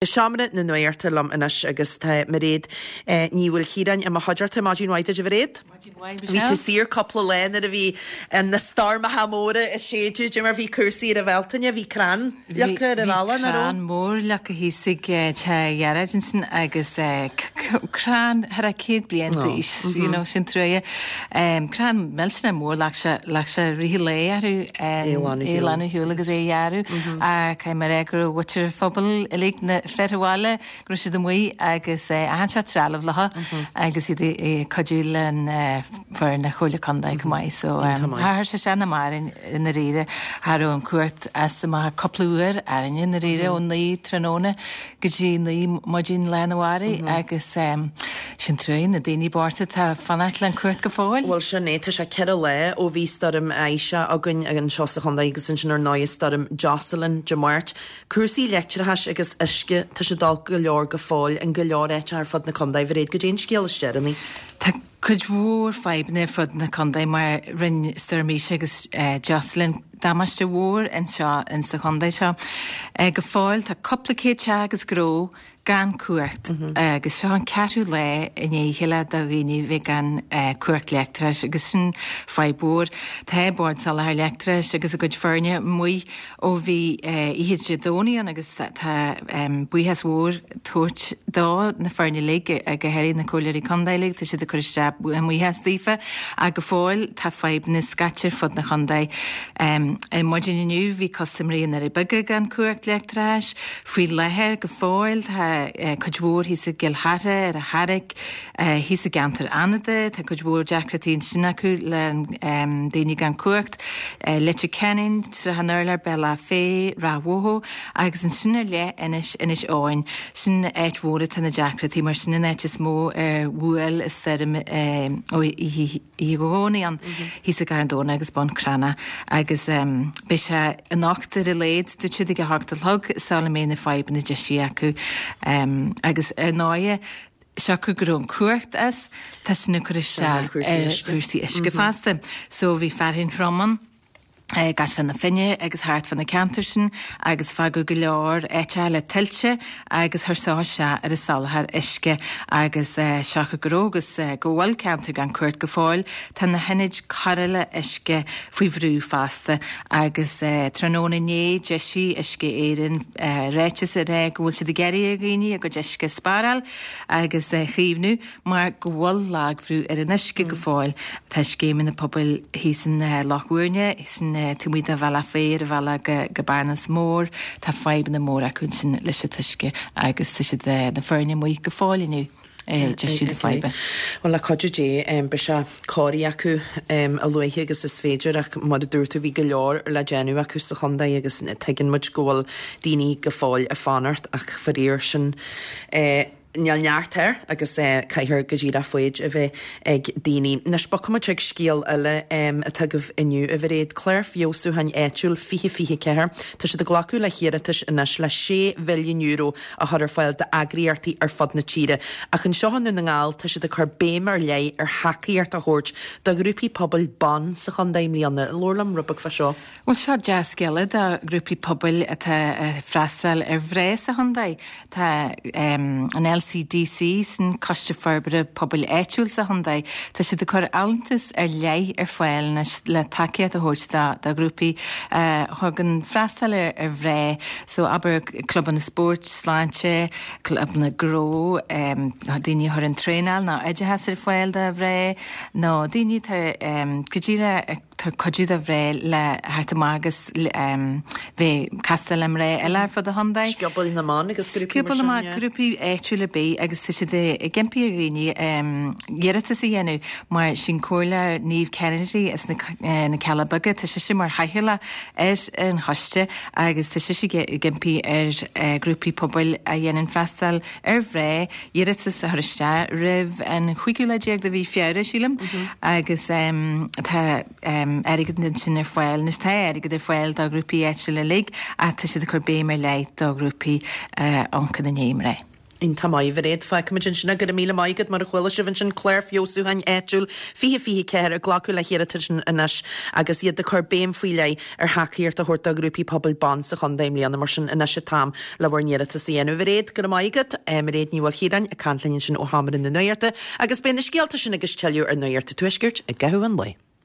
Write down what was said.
I seomra na nuachta liom anois agus tá Mairéad Ní Mhaoilchiaráin i mo chuideachta. Maidin mhaith duit a Mhairéad. Maidin mhaith Bhí tú Michelle. saor cúpla lá nuair a bhí na stoirmeacha móra ag séideadh, dé mar bhí cúrsaí ar an Bhealtaine, bhí crann leagtha ar an Bhí bhealach, nach raibh? crann mór leagtha thíos ag teach Ghearóid ansin agus crann thar a 100 bliain d'aois, you know, sin truaighe. Crann millteanach mór, leag sé, leag sé rith an lae orthu É a ghlanadh é a ghlanadh ar shiúl agus é a ghearradh. Caithfidh mé a rá go raibh muintir an phobail uilig, na fir an bhaile, go raibh siad amuigh agus achan seort trealamh leo agus iad ag cuidiú le foireann na Comhairle Contae chomh maith. So chuir sé sin am orainn i ndáiríre. Cha raibh an cumhacht as amach cúpla uair orainne i ndáiríre ó 9 tráthnóna go dtí 9 maidin lá arna mhárach agus sin truaighe na daoine bochta atá ag fanacht le an cumhacht go fóill. Bhuel sin é, tá sé 4 lá ó bhí stoirm Isha againn anseo sa chontae agus ansin ar ndóigh stoirm Jocelyn Dé Máirt. Cúrsaí leictreachais agus uisce, tá siad olc go leor go fóill in go leor áiteacha ar fud na contae. Mhairéad, goidé an scéal is deireanaí? Tá cuid mhór fadhbanna ar fud na contae mar rinne Stoirm Isha agus Jocelyn damáiste mhór anseo insa chontae seo. Go fóill tá cúpla céad teach agus gnó gan cumhacht agus seo an ceathrú lá i ndiaidh a chéile do dhaoine bheith gan cumhacht leictreachais agus sin fadhb mhór. Tá Bord Soláthair Leictreachais agus a gcuid foirne amuigh ó bhí oíche Dé Domhnaigh ann agus tá buíochas mhór tabhairt do na foirne uilig, go háirithe na comhairleoirí contae uilig, tá siad ag cur isteach a mbuíochas daofa ach go fóill tá fadhbanna scaite ar fud na chontae. Ar maidin inniu bhí custaiméirí i nDoirí Beaga gan cumhacht leictreachais. Faoi láthair go fóill tá cuid mhór thíos i gCill Chartha, ar an Charraic, Thíos i gceantar Fhánada, tá cuid mhór deacrachtaí ansin acu le daoine gan cumhacht. Leitir Ceanainn, Srath an Urláir, Bealach Féich, Ráth Bhoth agus ansin ar leith anois Inis Eoghain. Sin áit mhór atá na deacrachtaí mar sin an áit is mó ar bhuail an stoirm ó oíche Dé Domhnaigh ann thíos i gCarn Domhnach agus Bun Cranncha agus beidh sé anocht ar a laghad dúirt siad ag a hocht a chlog sula mbeidh na fadhbanna deisithe acu agus ar ndóighe siocair go raibh an cumhacht as, tá sin ag cur isteach ar chúrsaí uisce fosta. So bhí fearthainn throm ann i gCaisleán na Finne agus thart fá na ceantair sin agus fágadh go leor áiteacha le tuilte agus chuir seo isteach ar an soláthar uisce agus siocair go raibh agus go bhfuil ceantair gan cumhacht go fóill, tá na hionaid cóireála uisce faoi bhrú fosta agus tráthnóna inné d'eisigh Uisce Éireann ráiteas ag rá go bhfuil siad ag iarraidh ar dhaoine a gcuid uisce a spáráil agus a chaomhnú mar go bhfuil lagbhrú ar an uisce go fóill. Tá scéimeanna pobail thíos in Loch Mhúirne, sin taobh amuigh de Bhealach Féich ar an bhealach go Bearnas Mór, tá fadhbanna móra acu ansin leis an t-uisce agus tá siad, na foirne amuigh go fóill inniu ag deisiú na faidhbe. Bhuel, le cuidiú Dé, beidh sé cóirithe acu a luaithe agus is féidir ach mar a dúirt tú bhí go leor le déanamh acu sa chontae agus tuigeann muid go bhfuil daoine go fóill ag fanacht ach faraor sin níl neart air agus caithfear go díreach foighid a bheith ag daoine. Anois bogfaidh muid chuig scéal eile atá agaibh inniu, a Mhairéad, Clár Feabhsúcháin Áitiúil 2024. Tá siad ag glacadh le hiarratais anois le €6 mhilliún a chur ar fáil d'eagraíochtaí ar fud na tíre. Ach anseo i nDún na nGall, tá siad ag cur béim ar leith ar thacaíocht a thabhairt do ghrúpaí pobail ban sa chontae i mbliana. Labhair liom rud beag fá seo. Bhuel, seo dea-scéala do ghrúpaí pobail atá ag freastal ar mhná sa chontae. Tá an LCDC, sin Coiste Forbartha Pobail Áitiúil sa chontae, tá siad ag cur allúntas ar leith ar fáil anois le tacaíocht a thabhairt do ghrúpaí a thugann freastal ar mhná. So, abair, clubanna spóirt, sláinte, clubanna gnó, daoine a chuireann traenáil nó oideachas ar fáil do mhná, nó daoine atá go díreach ag tabhairt cuidiú do mhná le theacht amach agus bheith ag castáil le mná eile ar fud an chontae. Scioból na mBan agus grúpaí mar sin, yeah. Grúpaí áitiúla ar bith agus tá siad ag impí ar dhaoine iarratas a dhéanamh mar sin Comhairleoir Niamh Kennedy as na Cealla Beaga, tá sise mar chathaoirleach ar an choiste agus tá sise ag impí ar ghrúpaí pobail a dhéanann freastal ar mhná iarratas a chur isteach roimh an chúigiú lá déag de mhí Feabhra, sílim, agus tá airgead ansin ar fáil. Anois tá airgead ar fáil do ghrúpaí áitiúla uilig ach tá siad ag cur béim ar leith do ghrúpaí a amharcann i ndiaidh mná. Iontach maith, a Mhairéad. Fágfaimid ansin é. Go raibh míle maith agat. Mar a chuala sibh ansin, Clár Feabhsúcháin Áitiúil 2024 ag glacadh le hiarratais anois agus iad ag cur béim faoi leith ar thacaíocht a thabhairt do ghrúpaí pobail ban sa chontae i mbliana. Mar sin, anois an t-am le bhur n-iarratas a dhéanamh. A Mhairéad, go raibh maith agat. Mairéad Ní Mhaoilchiaráin ag caint linn ansin ó Sheomra na Nuachta agus beidh na scéalta sin agus tuilleadh ar Nuacht an Tuaiscirt i gcaitheamh an lae.